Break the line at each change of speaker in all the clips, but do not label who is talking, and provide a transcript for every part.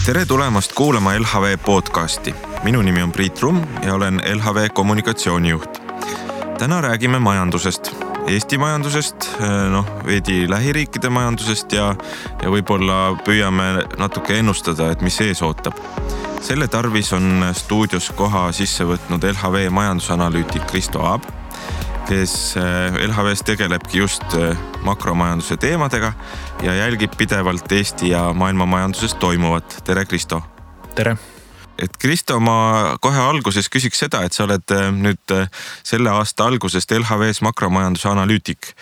Tere tulemast kuulama LHV podcasti. Minu nimi on Priit Rumm ja olen LHV kommunikatsioonijuht. Täna räägime majandusest, Eesti majandusest, veidi lähiriikide majandusest ja võib-olla püüame natuke ennustada, et mis ees ootab. Selle tarvis on stuudios koha sisse võtnud LHV majandusanalüütik Kristo Aab, kes LHVs tegelebki just makromajanduse teemadega ja jälgib pidevalt Eesti ja maailma majanduses toimuvat. Tere, Kristo!
Tere!
Et Kristo, ma kohe alguses küsiks seda, et sa oled nüüd selle aasta algusest LHVs makromajanduse analüütik.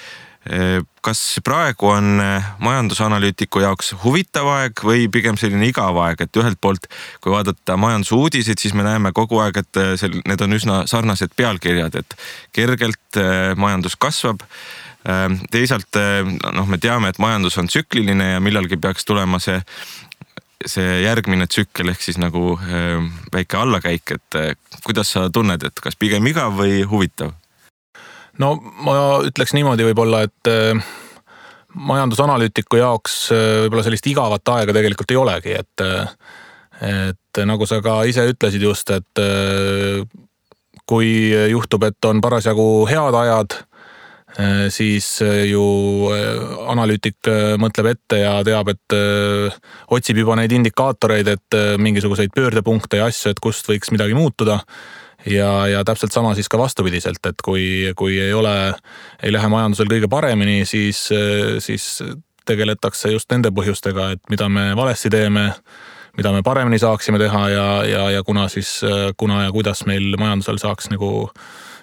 Kas praegu on majandusanalüütiku jaoks huvitav aeg või pigem selline igav aeg, et ühelt poolt, kui vaadata majandusuudiseid, siis me näeme kogu aeg, et need on üsna sarnased pealkirjad, et kergelt majandus kasvab. Teisalt me teame, et majandus on tsükliline ja millalgi peaks tulema see järgmine tsükkel ehk siis nagu väike allakäik, et kuidas sa tunned, et kas pigem igav või huvitav?
No ma ütleks niimoodi võib-olla, et majandusanalüütiku jaoks võib-olla sellist igavat aega tegelikult ei olegi, et nagu sa ka ise ütlesid just, et kui juhtub, et on parasjagu head ajad, siis ju analüütik mõtleb ette ja teab, et otsib juba neid indikaatoreid, et mingisuguseid pöördepunkte ja asju, et kust võiks midagi muutuda. Ja täpselt sama siis ka vastupidiselt, et kui ei lähe majandusel kõige paremini, siis tegeletakse just nende põhjustega, et mida me valesti teeme, mida me paremini saaksime teha ja kuna ja kuidas meil majandusel saaks nagu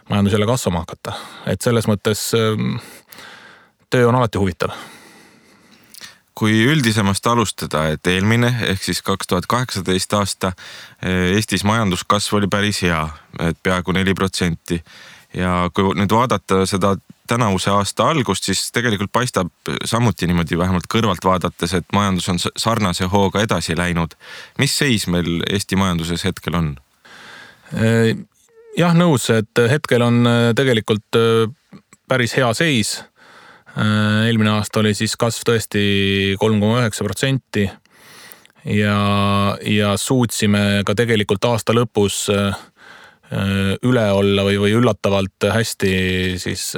majandus jälle kasvama hakata. Et selles mõttes töö on alati huvitav.
Kui üldisemast alustada, et eelmine ehk siis 2018 aasta Eestis majanduskasv oli päris hea, et peaaegu 4%. Ja kui nüüd vaadata seda tänavuse aasta algust, siis tegelikult paistab samuti niimoodi vähemalt kõrvalt vaadates, et majandus on sarnase hooga edasi läinud. Mis seis meil Eesti majanduses hetkel on?
Jah, nõus, et hetkel on tegelikult päris hea seis. Eelmine aasta oli siis kasv tõesti 3,9% ja suutsime ka tegelikult aasta lõpus üle olla või üllatavalt hästi siis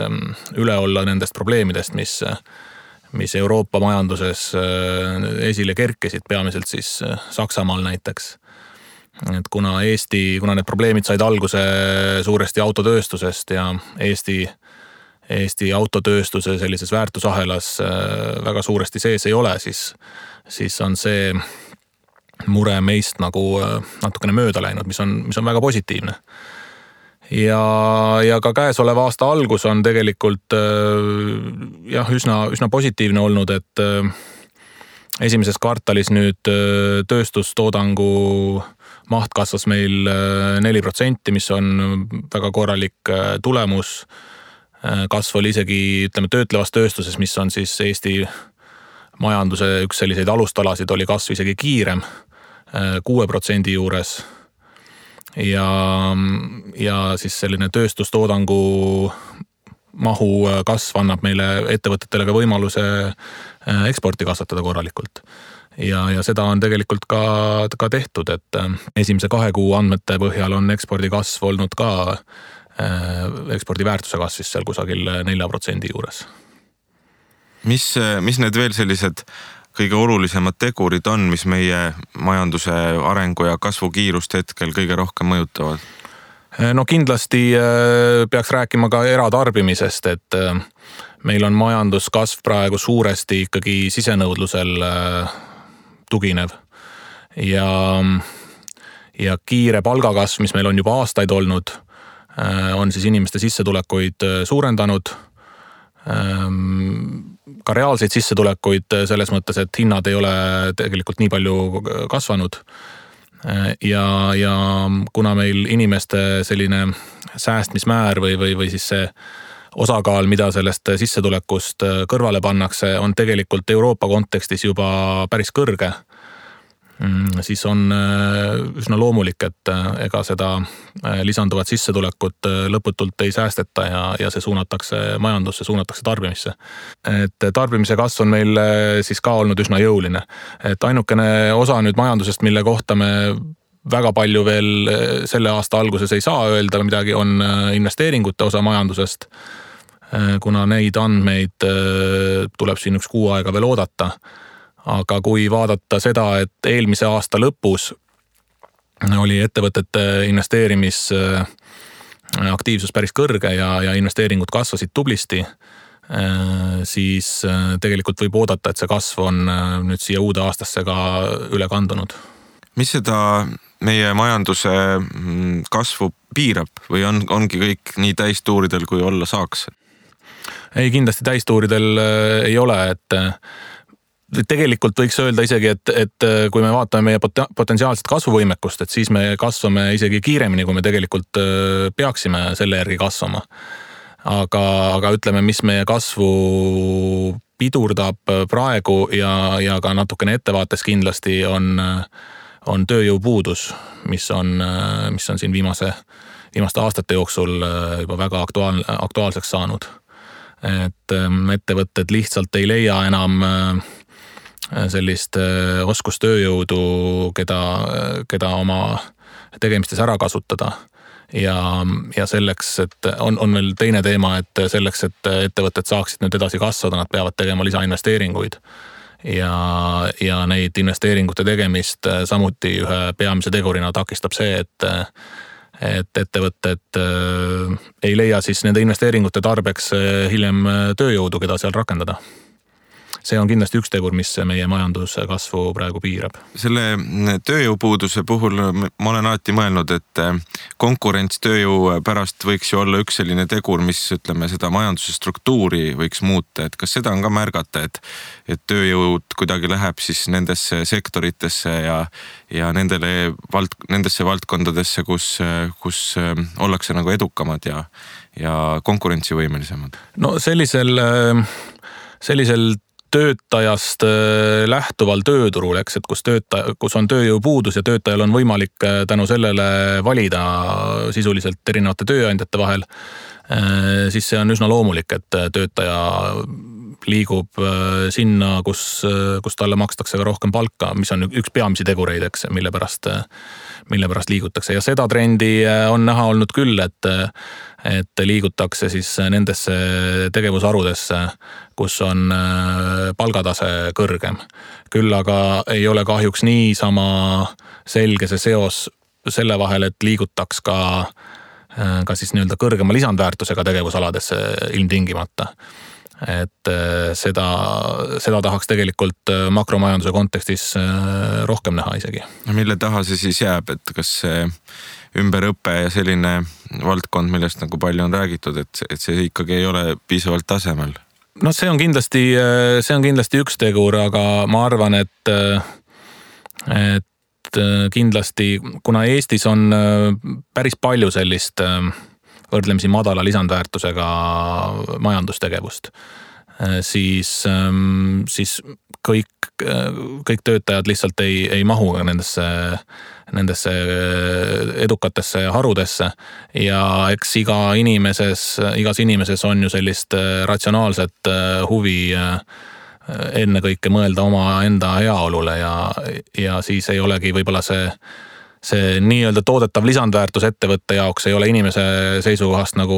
üle olla nendest probleemidest, mis Euroopa majanduses esile kerkesid, peamiselt siis Saksamaal näiteks. Et kuna need probleemid said alguse suuresti autotööstusest ja Eesti autotööstuse sellises väärtusahelas väga suuresti sees ei ole, siis on see mure meist nagu natukene mööda läinud, mis on väga positiivne. Ja ka käesoleva aasta algus on tegelikult üsna positiivne olnud, et esimeses kvartalis nüüd tööstustoodangu maht kasvas meil 4%, mis on väga korralik tulemus. Kasv oli isegi, töötlevas tööstuses, mis on siis Eesti majanduse üks selliseid alustalasid, oli kasv isegi kiirem, 6% juures. Ja siis selline tööstustoodangu mahu kasv annab meile ettevõtetele ka võimaluse eksporti kasvatada korralikult. Ja seda on tegelikult ka tehtud, et esimese 2 kuu andmete põhjal on ekspordi kasv olnud ka ekspordi väärtuse kasvis seal kusagil 4% juures.
Mis need veel sellised kõige olulisemad tegurid on, mis meie majanduse arengu ja kasvu kiirust hetkel kõige rohkem mõjutavad?
No kindlasti peaks rääkima ka eratarbimisest, et meil on majanduskasv praegu suuresti ikkagi sisenõudlusel tuginev ja kiire palgakasv, mis meil on juba aastaid olnud, on siis inimeste sissetulekuid suurendanud, ka reaalseid sissetulekuid selles mõttes, et hinnad ei ole tegelikult nii palju kasvanud. Ja kuna meil inimeste selline säästmismäär või siis see osakaal, mida sellest sissetulekust kõrvale pannakse, on tegelikult Euroopa kontekstis juba päris kõrge. siis on üsna loomulik, et ega seda lisanduvat sissetulekut lõputult ei säästeta ja see suunatakse majandusse, suunatakse tarbimisse. Et tarbimise kasv on meil siis ka olnud üsna jõuline. Et ainukene osa nüüd majandusest, mille kohta me väga palju veel selle aasta alguses ei saa öelda midagi, on investeeringute osa majandusest, kuna neid andmeid tuleb siin üks kuu aega veel oodata. Aga kui vaadata seda, et eelmise aasta lõpus oli ettevõtete investeerimisaktiivsus päris kõrge ja investeeringud kasvasid tublisti, siis tegelikult võib oodata, et see kasv on nüüd siia uude aastasse ka üle kandunud.
Mis seda meie majanduse kasvu piirab või ongi kõik nii täistuuridel, kui olla saaks?
Ei, kindlasti täistuuridel ei ole, et tegelikult võiks öelda isegi, et kui me vaatame meie potentsiaalset kasvuvõimekust, et siis me kasvame isegi kiiremini, kui me tegelikult peaksime selle järgi kasvama. Aga ütleme, mis meie kasvu pidurdab praegu ja ka natukene ettevaates kindlasti on tööjõupuudus, mis on siin viimaste aastate jooksul juba väga aktuaalseks saanud. Et ettevõtted lihtsalt ei leia enam sellist oskustööjõudu, keda oma tegemistes ära kasutada. Ja selleks, et on veel teine teema, et selleks, et ettevõtted saaksid nüüd edasi kasvada, nad peavad tegema lisainvesteeringuid. Ja neid investeeringute tegemist samuti ühe peamise tegurina takistab see, et ettevõtted ei leia siis nende investeeringute tarbeks hiljem tööjõudu, keda seal rakendada. See on kindlasti üks tegur, mis meie majanduse kasvu praegu piirab.
Selle tööjõupuuduse puhul ma olen alati mõelnud, et konkurents tööjõu pärast võiks ju olla üks selline tegur, mis ütleme seda majanduse struktuuri võiks muuta. Et kas seda on ka märgata, et tööjõud kuidagi läheb siis nendesse sektoritesse ja nendesse valdkondadesse, kus ollakse nagu edukamad ja konkurentsivõimelisemad?
No sellisel töötajast lähtuval tööturul, eks, et kus on tööjõupuudus ja töötajal on võimalik tänu sellele valida sisuliselt erinevate tööandjate vahel, siis see on üsna loomulik, et töötaja liigub sinna, kus talle makstakse ka rohkem palka, mis on üks peamisi tegureid, eks, mille pärast liigutakse. Ja seda trendi on näha olnud küll, et liigutakse siis nendesse tegevusharudesse, kus on palgatase kõrgem. Küll aga ei ole kahjuks niisama selge see seos selle vahel, et liigutaks ka siis nii-öelda kõrgema lisandväärtusega tegevusaladesse ilmtingimata. Et seda tahaks tegelikult makromajanduse kontekstis rohkem näha isegi.
Mille taha see siis jääb, et kas see ümberõpe ja selline valdkond, millest nagu palju on räägitud, et see ikkagi ei ole piisavalt tasemel?
No see on kindlasti üks tegur, aga ma arvan, et kindlasti, kuna Eestis on päris palju sellist võrdlemisi madala lisandväärtusega majandustegevust, siis kõik töötajad lihtsalt ei mahu nendesse edukatesse harudesse ja eks igas inimeses on ju sellist ratsionaalset huvi ennekõike mõelda oma enda heaolule ja siis ei olegi võib-olla see nii-öelda toodetav lisandväärtus ettevõtte jaoks ei ole inimese seisukohast nagu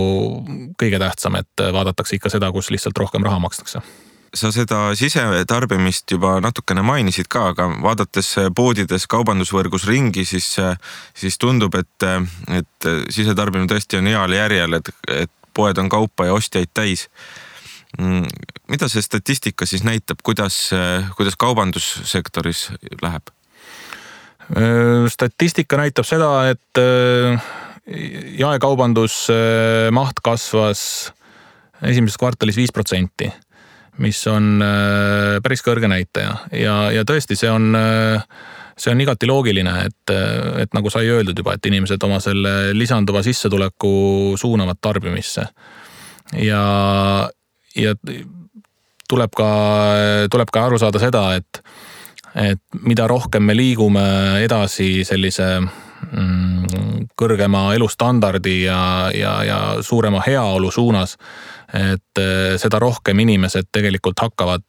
kõige tähtsam, et vaadatakse ikka seda, kus lihtsalt rohkem raha makstakse.
Sa seda sisetarbimist juba natukene mainisid ka, aga vaadates poodides kaubandusvõrgus ringi, siis tundub, et sisetarbimine tõesti on heal järjel, et poed on kaupa ja ostjaid täis. Mida see statistika siis näitab, kuidas kaubandussektoris läheb?
Statistika näitab seda, et jaekaubandus maht kasvas esimeses kvartalis 5%, mis on päris kõrge näitaja ja tõesti see on igati loogiline, et nagu sai öeldud juba, et inimesed oma selle lisanduva sissetuleku suunavad tarbimisse ja tuleb ka aru saada seda, et et mida rohkem me liigume edasi sellise kõrgema elustandardi ja suurema heaolu suunas, et seda rohkem inimesed tegelikult hakkavad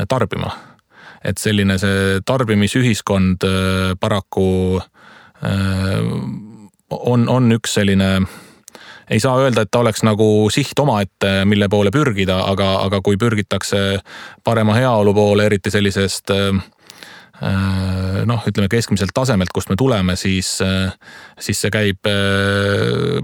tarbima. Et selline see tarbimisühiskond paraku on üks selline, ei saa öelda, et ta oleks nagu siht omaette, mille poole pürgida, aga kui pürgitakse parema heaolu poole, eriti sellisest ütleme keskmiselt tasemelt, kust me tuleme, siis see käib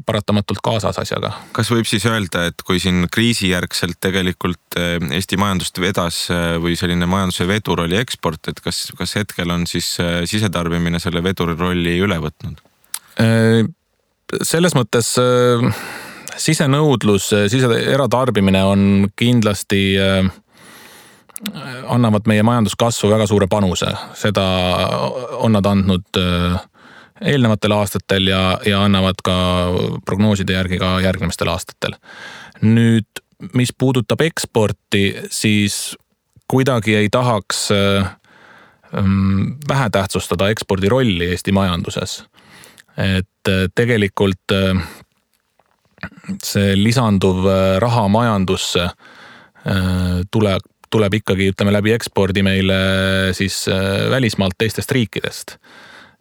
paratamatult kaasas asjaga.
Kas võib siis öelda, et kui siin kriisijärgselt tegelikult Eesti majandust vedas või selline majanduse vedur oli eksport, et kas hetkel on siis sisetarbimine selle veduri rolli üle võtnud?
Selles mõttes sisenõudlus, eratarbimine on kindlasti annavad meie majanduskasvu väga suure panuse. Seda on nad andnud eelnevatel aastatel ja annavad ka prognooside järgi ka järgnemistel aastatel. Nüüd, mis puudutab eksporti, siis kuidagi ei tahaks vähe tähtsustada ekspordi rolli Eesti majanduses. Et tegelikult see lisanduv raha majandusse tuleb ikkagi, ütleme, läbi ekspordi meile siis välismaalt teistest riikidest.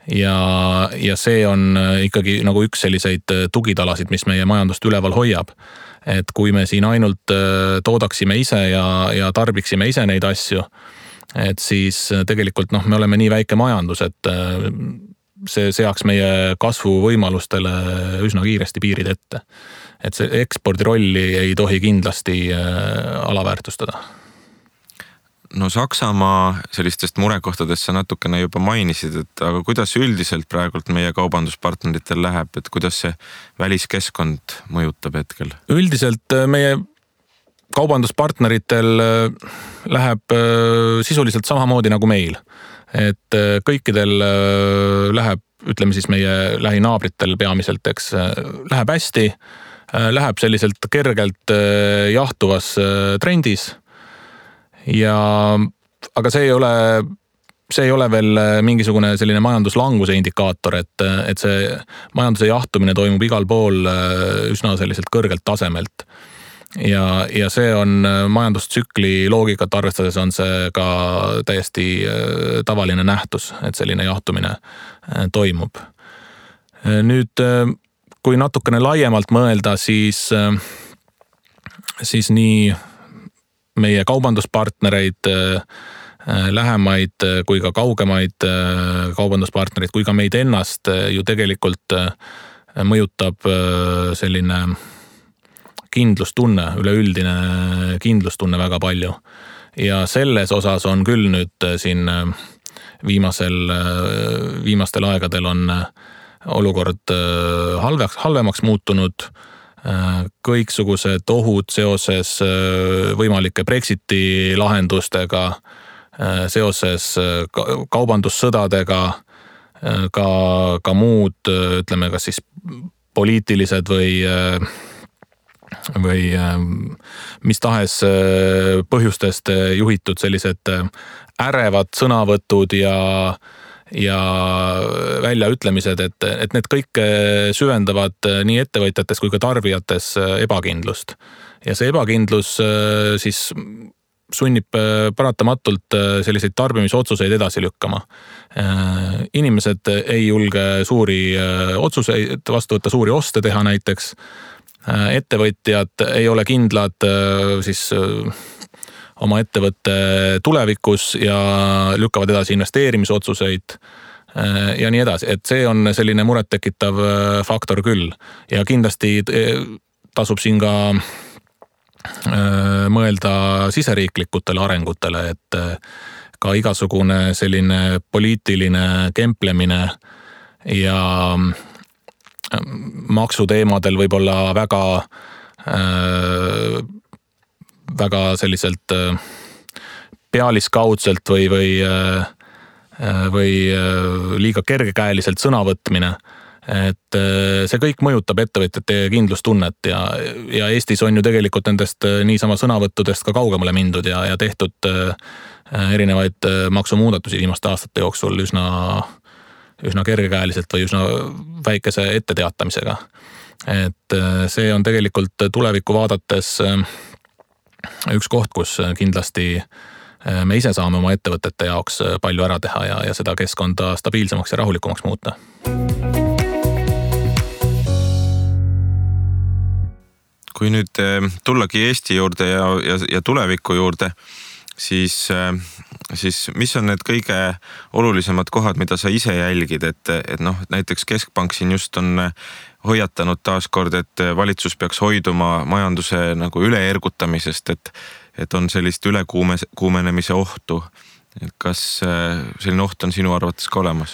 Ja see on ikkagi nagu üks selliseid tugitalasid, mis meie majandust üleval hoiab. Et kui me siin ainult toodaksime ise ja tarbiksime ise neid asju, et siis tegelikult me oleme nii väike majandus, et see seaks meie kasvuvõimalustele üsna kiiresti piirid ette. Et see ekspordi rolli ei tohi kindlasti alaväärtustada.
No Saksamaa sellistest murekohtadest sa natukene juba mainisid, et aga kuidas üldiselt praegult meie kaubanduspartneritel läheb, et kuidas see väliskeskkond mõjutab hetkel?
Üldiselt meie kaubanduspartneritel läheb sisuliselt samamoodi nagu meil. Et kõikidel läheb, ütleme siis meie lähinaabritel peamiselt, eks, läheb hästi, läheb selliselt kergelt jahtuvas trendis. Aga see ei ole veel mingisugune selline majanduslanguse indikaator, et see majanduse jahtumine toimub igal pool üsna selliselt kõrgelt tasemelt. Ja see on majandustsükli loogikat arvestades on see ka täiesti tavaline nähtus, et selline jahtumine toimub. Nüüd, kui natukene laiemalt mõelda, siis nii meie kaubanduspartnereid, lähemaid kui ka kaugemaid kaubanduspartnereid, kui ka meid ennast ju tegelikult mõjutab selline kindlustunne, üleüldine kindlustunne väga palju. Ja selles osas on küll nüüd siin viimastel aegadel on olukord halvemaks muutunud. Kõiksugused ohud seoses võimalike Brexiti lahendustega, seoses kaubandussõdadega, ka muud, ütleme, kas siis poliitilised või mis tahes põhjustest juhitud sellised ärevad sõnavõtud ja väljaütlemised, et need kõik süvendavad nii ettevõtjates kui ka tarbijates ebakindlust. Ja see ebakindlus siis sunnib paratamatult selliseid tarbimisotsuseid edasi lükkama. Inimesed ei julge suuri otsuseid vastu võtta, suuri oste teha näiteks. Ettevõtjad ei ole kindlad siis oma ettevõtte tulevikus ja lükkavad edasi investeerimisotsuseid ja nii edasi. Et see on selline murettekitav faktor küll. Ja kindlasti tasub siin ka mõelda siseriiklikutele arengutele, et ka igasugune selline poliitiline kemplemine ja maksuteemadel võib-olla väga selliselt pealiskaudselt või liiga kergekäeliselt sõnavõtmine, et see kõik mõjutab ettevõtjate kindlustunnet ja Eestis on ju tegelikult nendest niisama sõnavõttudest ka kaugemale mindud ja tehtud erinevaid maksumuudatusi viimaste aastate jooksul üsna kergekäeliselt või üsna väikese etteteatamisega. Et see on tegelikult tulevikku vaadates üks koht, kus kindlasti me ise saame oma ettevõtete jaoks palju ära teha ja seda keskkonda stabiilsemaks ja rahulikumaks muuta.
Kui nüüd tullagi Eesti juurde ja tuleviku juurde, siis mis on need kõige olulisemad kohad, mida sa ise jälgid, et näiteks Keskpank siin just on hoiatanud taaskord, et valitsus peaks hoiduma majanduse nagu üleergutamisest, et on sellist ülekuumenemise ohtu. Kas selline oht on sinu arvates ka olemas?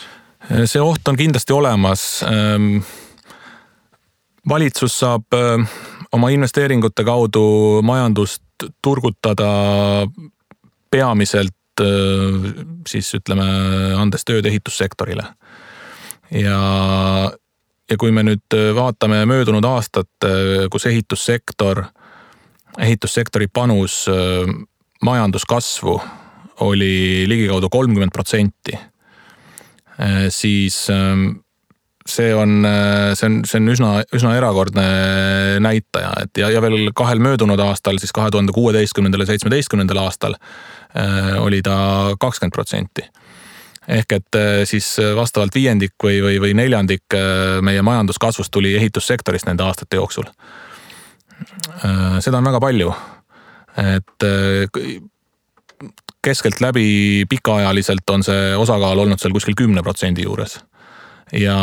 See oht on kindlasti olemas. Valitsus saab oma investeeringute kaudu majandust turgutada peamiselt siis ütleme andes tööd ehitussektorile. Ja kui me nüüd vaatame möödunud aastat, kus ehitussektori panus majanduskasvu oli ligikaudu 30%, siis see on üsna erakordne näitaja, et ja veel kahel möödunud aastal, siis 2016. ja 2017. aastal oli ta 20%. Ehk et siis vastavalt viiendik või neljandik meie majanduskasvust tuli ehitussektorist nende aastate jooksul. Seda on väga palju, et keskelt läbi pikaajaliselt on see osakaal olnud seal kuskil 10% juures. Ja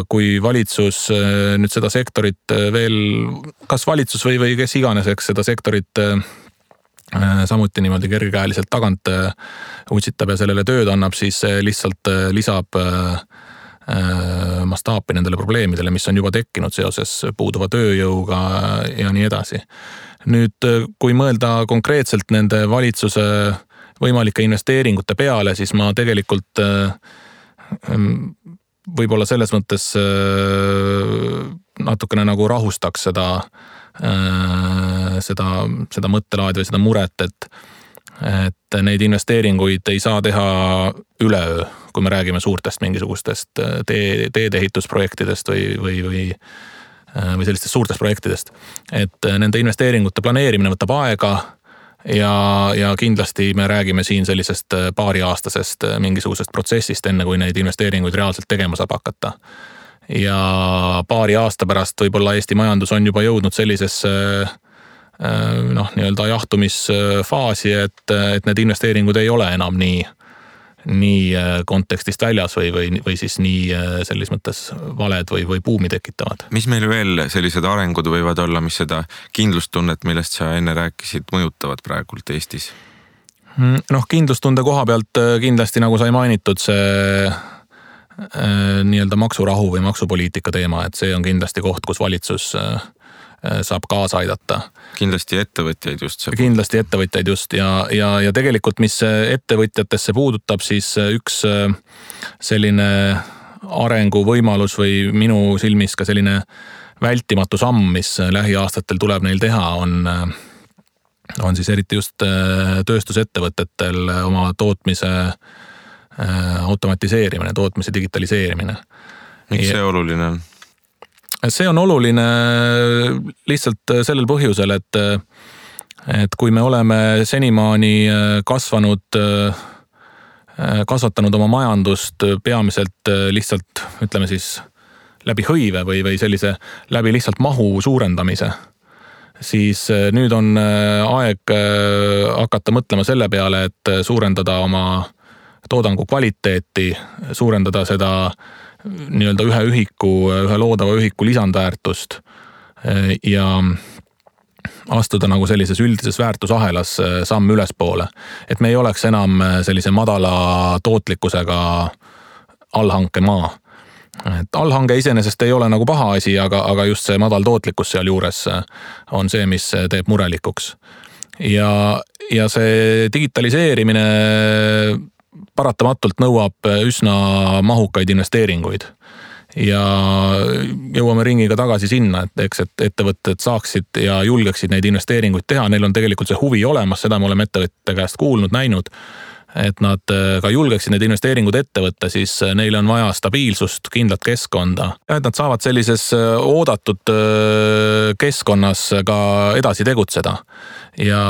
kui valitsus nüüd seda sektorit veel, kas valitsus või kes iganes, eks seda sektorit samuti niimoodi kergekäeliselt tagant utsitab ja sellele tööd annab, siis lihtsalt lisab mastaapi nendele probleemidele, mis on juba tekkinud seoses puuduva tööjõuga ja nii edasi. Nüüd, kui mõelda konkreetselt nende valitsuse võimalike investeeringute peale, siis ma tegelikult võib-olla selles mõttes natukene nagu rahustaks seda mõttelaadi või seda muret, et neid investeeringuid ei saa teha üleöö, kui me räägime suurtest mingisugustest teedeehitusprojektidest või sellistest suurtest projektidest. Et nende investeeringute planeerimine võtab aega ja kindlasti me räägime siin sellisest paariaastasest mingisugusest protsessist, enne kui neid investeeringuid reaalselt tegema saab hakata. Ja paari aasta pärast võib-olla Eesti majandus on juba jõudnud sellisesse nii-öelda jahtumisfaasi, et need investeeringud ei ole enam nii kontekstist väljas või siis nii selles mõttes valed või buumi tekitavad.
Mis meil veel sellised arengud võivad olla, mis seda kindlustunnet, millest sa enne rääkisid, mõjutavad praegult Eestis?
Kindlustunde koha pealt kindlasti, nagu sai mainitud, see nii-öelda maksurahu või maksupoliitika teema, et see on kindlasti koht, kus valitsus saab kaasa aidata.
Kindlasti ettevõtjaid just.
Kindlasti ettevõtjaid just ja tegelikult, mis ettevõtjatesse puudutab, siis üks selline arenguvõimalus või minu silmis ka selline vältimatu samm, mis lähiaastatel tuleb neil teha, on siis eriti just tööstusettevõtetel oma tootmise automatiseerimine, tootmise digitaliseerimine.
Miks see oluline on?
See on oluline lihtsalt sellel põhjusel, et kui me oleme senimaani kasvatanud oma majandust peamiselt lihtsalt, ütleme siis, läbi hõive või sellise läbi lihtsalt mahu suurendamise, siis nüüd on aeg hakata mõtlema selle peale, et suurendada oma toodangu kvaliteeti, suurendada seda nii-öelda ühe loodava ühiku lisandväärtust ja astuda nagu sellises üldises väärtusahelas samm ülespoole. Et me ei oleks enam sellise madala tootlikkusega allhanke maa. Et allhange iseenesest ei ole nagu paha asi, aga just see madal tootlikkus seal juures on see, mis teeb murelikuks. Ja see digitaliseerimine paratamatult nõuab üsna mahukaid investeeringuid. ja jõuame ringiga tagasi sinna, et eks, et ettevõtted saaksid ja julgeksid neid investeeringuid teha, neil on tegelikult see huvi olemas, seda me oleme ettevõtete käest kuulnud, näinud, et nad ka julgeksid need investeeringud ette võtta, siis neile on vaja stabiilsust, kindlat keskkonda. Ja et nad saavad sellises oodatud keskkonnas ka edasi tegutseda. Ja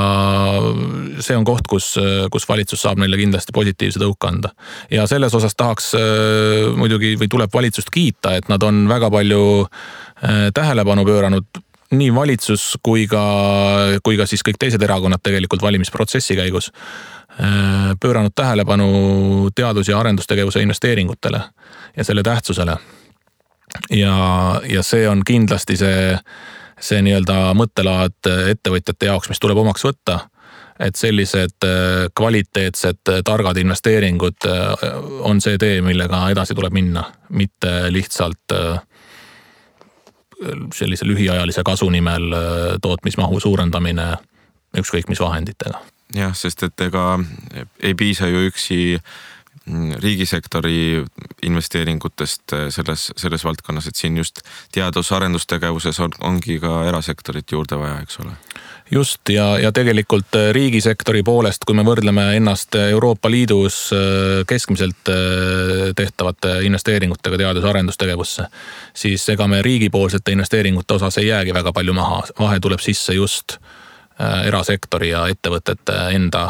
see on koht, kus valitsus saab neile kindlasti positiivse tõuke anda. Ja selles osas tahaks muidugi või tuleb valitsust kiita, et nad on väga palju tähelepanu pööranud nii valitsus kui ka siis kõik teised erakonnad tegelikult valimisprotsessi käigus pööranud tähelepanu teadus- ja arendustegevuse investeeringutele ja selle tähtsusele. Ja see on kindlasti see nii-öelda mõttelaad ettevõtjate jaoks, mis tuleb omaks võtta, et sellised kvaliteetsed, targad investeeringud on see tee, millega edasi tuleb minna, mitte lihtsalt sellise lühiajalise kasu nimel tootmismahu suurendamine ükskõik mis vahenditega.
Jah, sest et ega ei piisa ju üksi riigisektori investeeringutest selles valdkonnas, et siin just teadus-arendustegevuses ongi ka erasektorit juurde vaja, eks ole.
Just ja tegelikult riigisektori poolest, kui me võrdleme ennast Euroopa Liidus keskmiselt tehtavate investeeringutega teadus-arendustegevusse, siis ega me riigipoolsete investeeringute osas ei jäägi väga palju maha. Vahe tuleb sisse just erasektori ja ettevõtete enda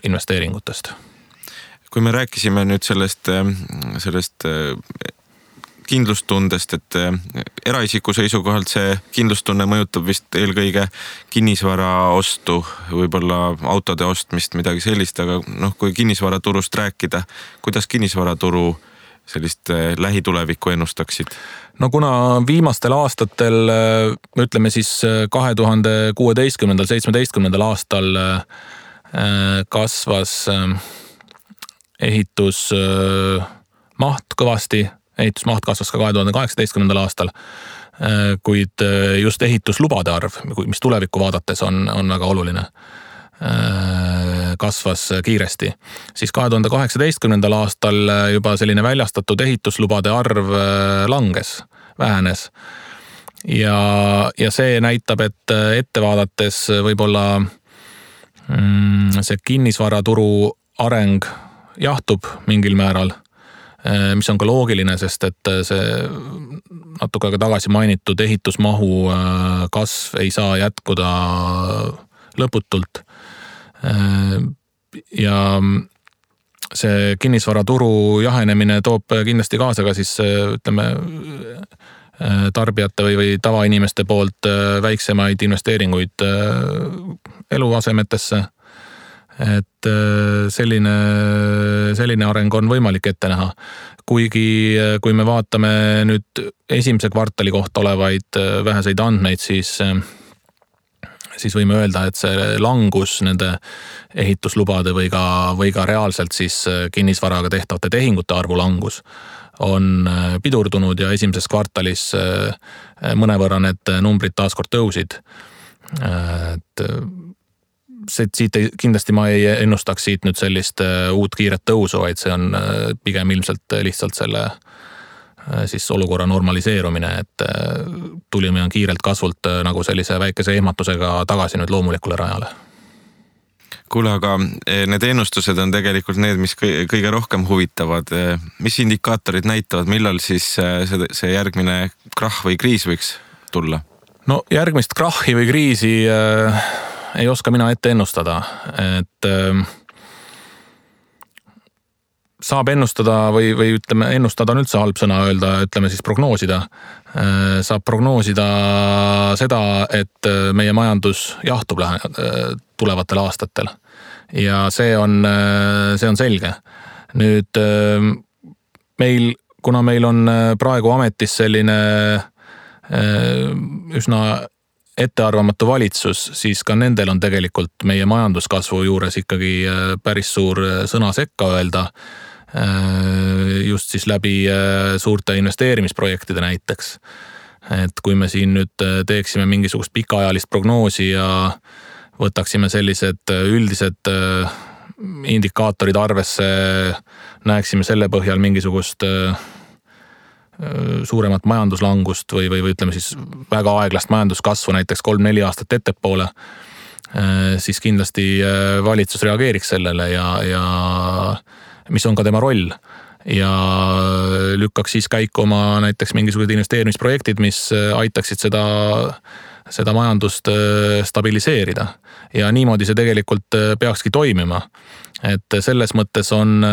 investeeringutest.
Kui me rääkisime nüüd sellest kindlustundest, et eraisiku seisukohalt see kindlustunne mõjutab vist eelkõige kinnisvara ostu, võib-olla autode ostmist, midagi sellist, aga kui kinnisvaraturust rääkida, kuidas kinnisvaraturu sellist lähitulevikku ennustaksid?
No kuna viimastel aastatel, ütleme siis 2016-17 aastal kasvas ehitusmaht kõvasti, ehitusmaht kasvas ka 2018 aastal, kuid just ehituslubade arv, mis tulevikku vaadates on väga oluline, kasvas kiiresti. Siis 2018 aastal juba selline väljastatud ehituslubade arv langes, vähenes. Ja see näitab, et ette vaadates võib-olla see kinnisvaraturu areng jahtub mingil määral, mis on ka loogiline, sest et see natuke aega tagasi mainitud ehitusmahu kasv ei saa jätkuda lõputult. Ja see kinnisvaraturu jahenemine toob kindlasti kaasa ka siis ütleme tarbijate või tavainimeste poolt väiksemaid investeeringuid eluasemetesse. Et selline areng on võimalik ette näha. Kuigi kui me vaatame nüüd esimese kvartali kohta olevaid väheseid andmeid, siis võime öelda, et see langus nende ehituslubade või ka reaalselt siis kinnisvaraga tehtavate tehingute arvu langus on pidurdunud ja esimeses kvartalis mõnevõrra need numbrid taaskord tõusid. Et siit kindlasti ma ei ennustaks siit nüüd sellist uut kiiret tõusu, vaid see on pigem ilmselt lihtsalt selle siis olukorra normaliseerumine, et tulime kiirelt kasvult nagu sellise väikese ehmatusega tagasi nüüd loomulikule rajale.
Kuule, aga need ennustused on tegelikult need, mis kõige rohkem huvitavad. Mis indikaatorid näitavad, millal siis see järgmine krahh või kriis võiks tulla?
No järgmist krahhi või kriisi ei oska mina ette ennustada, et saab ennustada või ütleme, ennustada on üldse halb sõna öelda, ütleme siis prognoosida. Saab prognoosida seda, et meie majandus jahtub tulevatel aastatel. Ja see on selge. Nüüd kuna meil on praegu ametis selline üsna ettearvamatu valitsus, siis ka nendel on tegelikult meie majanduskasvu juures ikkagi päris suur sõna sekka öelda, just siis läbi suurte investeerimisprojektide näiteks. Et kui me siin nüüd teeksime mingisugust pikaajalist prognoosi ja võtaksime sellised üldised indikaatorid arvesse, näeksime selle põhjal mingisugust suuremat majanduslangust või ütleme siis väga aeglast majanduskasvu näiteks 3-4 aastat ettepoole, siis kindlasti valitsus reageeriks sellele ja mis on ka tema roll ja lükkaks siis käiku oma näiteks mingisugused investeerimisprojektid, mis aitaksid seda majandust stabiliseerida ja niimoodi see tegelikult peakski toimima. Et selles mõttes on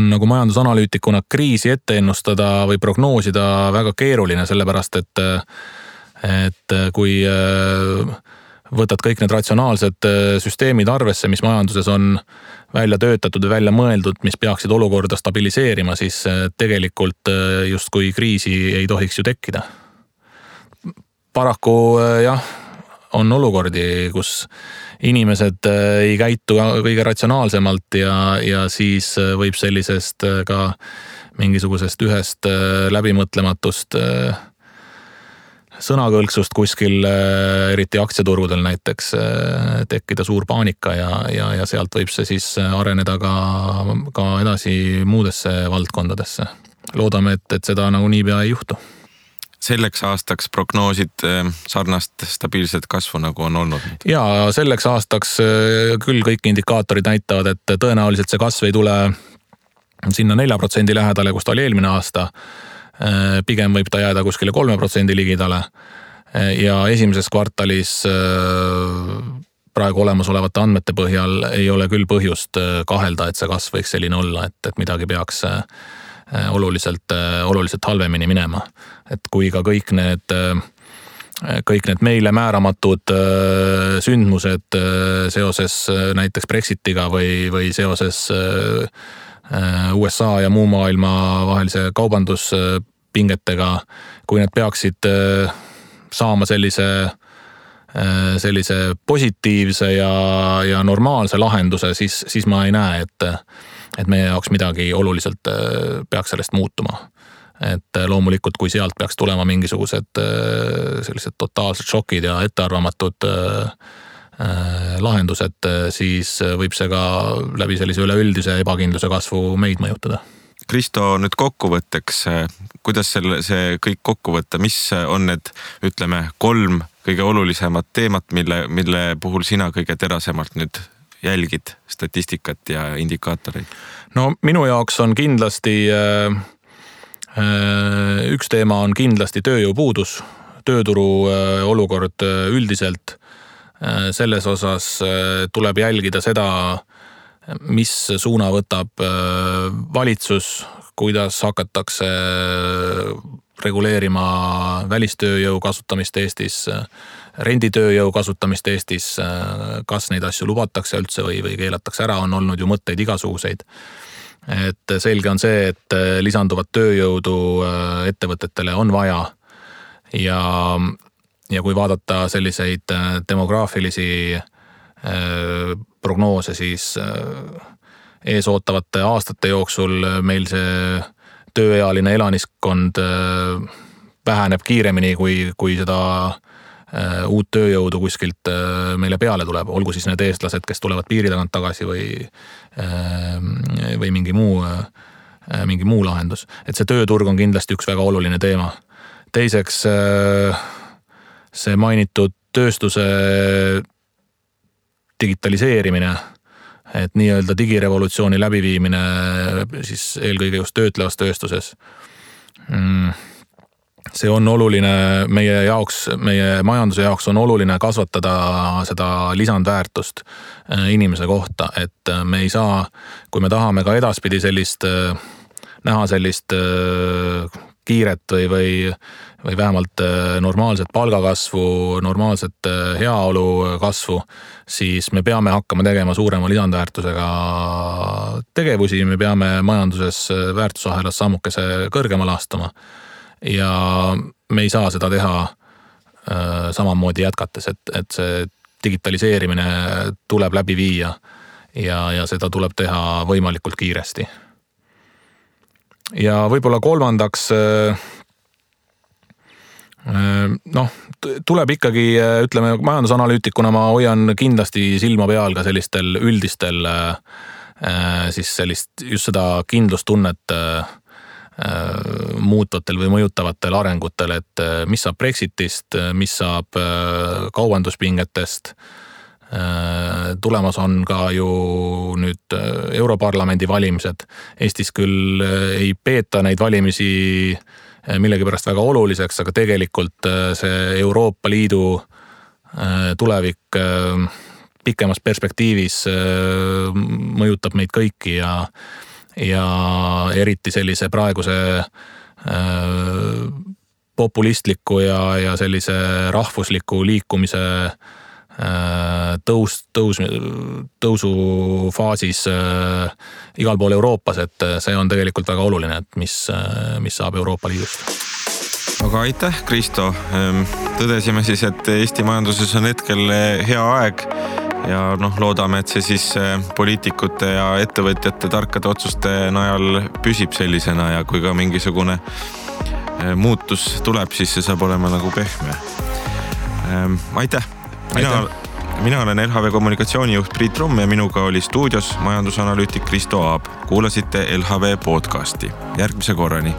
nagu majandusanalüütikuna kriisi ette ennustada või prognoosida väga keeruline, sellepärast et kui võtad kõik need ratsionaalsed süsteemid arvesse, mis majanduses on välja töötatud ja välja mõeldud, mis peaksid olukorda stabiliseerima, siis tegelikult justkui kriisi ei tohiks ju tekkida. Paraku jah, on olukordi, kus inimesed ei käitu kõige ratsionaalsemalt ja siis võib sellisest ka mingisugusest ühest läbimõtlematust sõnakõlksust kuskil, eriti aktsiaturgudel näiteks, tekkida suur paanika ja sealt võib see siis areneda ka edasi muudesse valdkondadesse. Loodame, et seda nagu niipea ei juhtu.
Selleks aastaks prognoosid sarnast stabiilset kasvu nagu on olnud?
Ja selleks aastaks küll kõik indikaatorid näitavad, et tõenäoliselt see kasv ei tule sinna 4% lähedale, kus ta oli eelmine aasta. Pigem võib ta jääda kuskile 3% ligidale ja esimeses kvartalis praegu olemasolevate andmete põhjal ei ole küll põhjust kahelda, et see kasv võiks selline olla, et midagi peaks oluliselt halvemini minema. Et kui ka kõik need meile määramatud sündmused seoses näiteks Brexitiga või seoses USA ja muu maailma vahelise kaubanduspingetega, kui need peaksid saama sellise positiivse ja normaalse lahenduse, siis ma ei näe, et meie jaoks midagi oluliselt peaks sellest muutuma. Et loomulikult, kui sealt peaks tulema mingisugused sellised totaalsed šokid ja ettearvamatud lahendused, siis võib see ka läbi sellise üleüldise ebakindluse kasvu meid mõjutada.
Kristo, nüüd kokkuvõtteks, kuidas see kõik kokku võtta, mis on need, ütleme, 3 kõige olulisemat teemat, mille puhul sina kõige terasemalt nüüd jälgid statistikat ja indikaatoreid?
No minu jaoks on kindlasti, üks teema on kindlasti tööjõupuudus, tööturu olukord üldiselt. Selles osas tuleb jälgida seda, mis suuna võtab valitsus, kuidas hakatakse reguleerima välistööjõu kasutamist Eestis, renditööjõu kasutamist Eestis, kas neid asju lubatakse üldse või keelatakse ära, on olnud ju mõtteid igasuguseid. Et selge on see, et lisanduvat tööjõudu ettevõtetele on vaja ja kui vaadata selliseid demograafilisi prognoose, siis ees ootavate aastate jooksul meil see tööealine elaniskond väheneb kiiremini, kui seda uut tööjõudu kuskilt meile peale tuleb, olgu siis need eestlased, kes tulevad piiri tagant tagasi või mingi muu lahendus. Et see tööturg on kindlasti üks väga oluline teema. Teiseks see mainitud tööstuse digitaliseerimine, et nii-öelda digirevolutsiooni läbiviimine siis eelkõige just töötlevas tööstuses. See on oluline meie jaoks, meie majanduse jaoks on oluline kasvatada seda lisandväärtust inimese kohta, et me ei saa, kui me tahame ka edaspidi näha sellist kiiret või vähemalt normaalset palgakasvu, normaalset heaolu kasvu, siis me peame hakkama tegema suurema lisandväärtusega tegevusi, me peame majanduses väärtusahelas sammukese kõrgemale astuma ja me ei saa seda teha samamoodi jätkates, et see digitaliseerimine tuleb läbi viia ja seda tuleb teha võimalikult kiiresti. Ja võib-olla kolmandaks, tuleb ikkagi, ütleme, majandusanalüütikuna ma hoian kindlasti silma peal ka sellistel üldistel, siis sellist just seda kindlustunnet muutvatel või mõjutavatel arengutel, et mis saab Brexitist, mis saab kaubanduspingetest. Tulemas on ka ju nüüd Europarlamendi valimised. Eestis küll ei peeta neid valimisi millegipärast väga oluliseks, aga tegelikult see Euroopa Liidu tulevik pikemas perspektiivis mõjutab meid kõiki ja eriti sellise praeguse populistliku ja sellise rahvusliku liikumise tõusufaasis igal pool Euroopas, et see on tegelikult väga oluline, et mis saab Euroopa Liidust.
Aga aitäh, Kristo. Tõdesime siis, et Eesti majanduses on hetkel hea aeg ja loodame, et see siis poliitikute ja ettevõtjate tarkade otsuste najal püsib sellisena ja kui ka mingisugune muutus tuleb, siis see saab olema nagu pehme. Aitäh! Mina olen LHV kommunikatsioonijuht Priit Rumm ja minuga oli stuudios majandusanalüütik Kristo Aab. Kuulasite LHV podcasti. Järgmise korrani!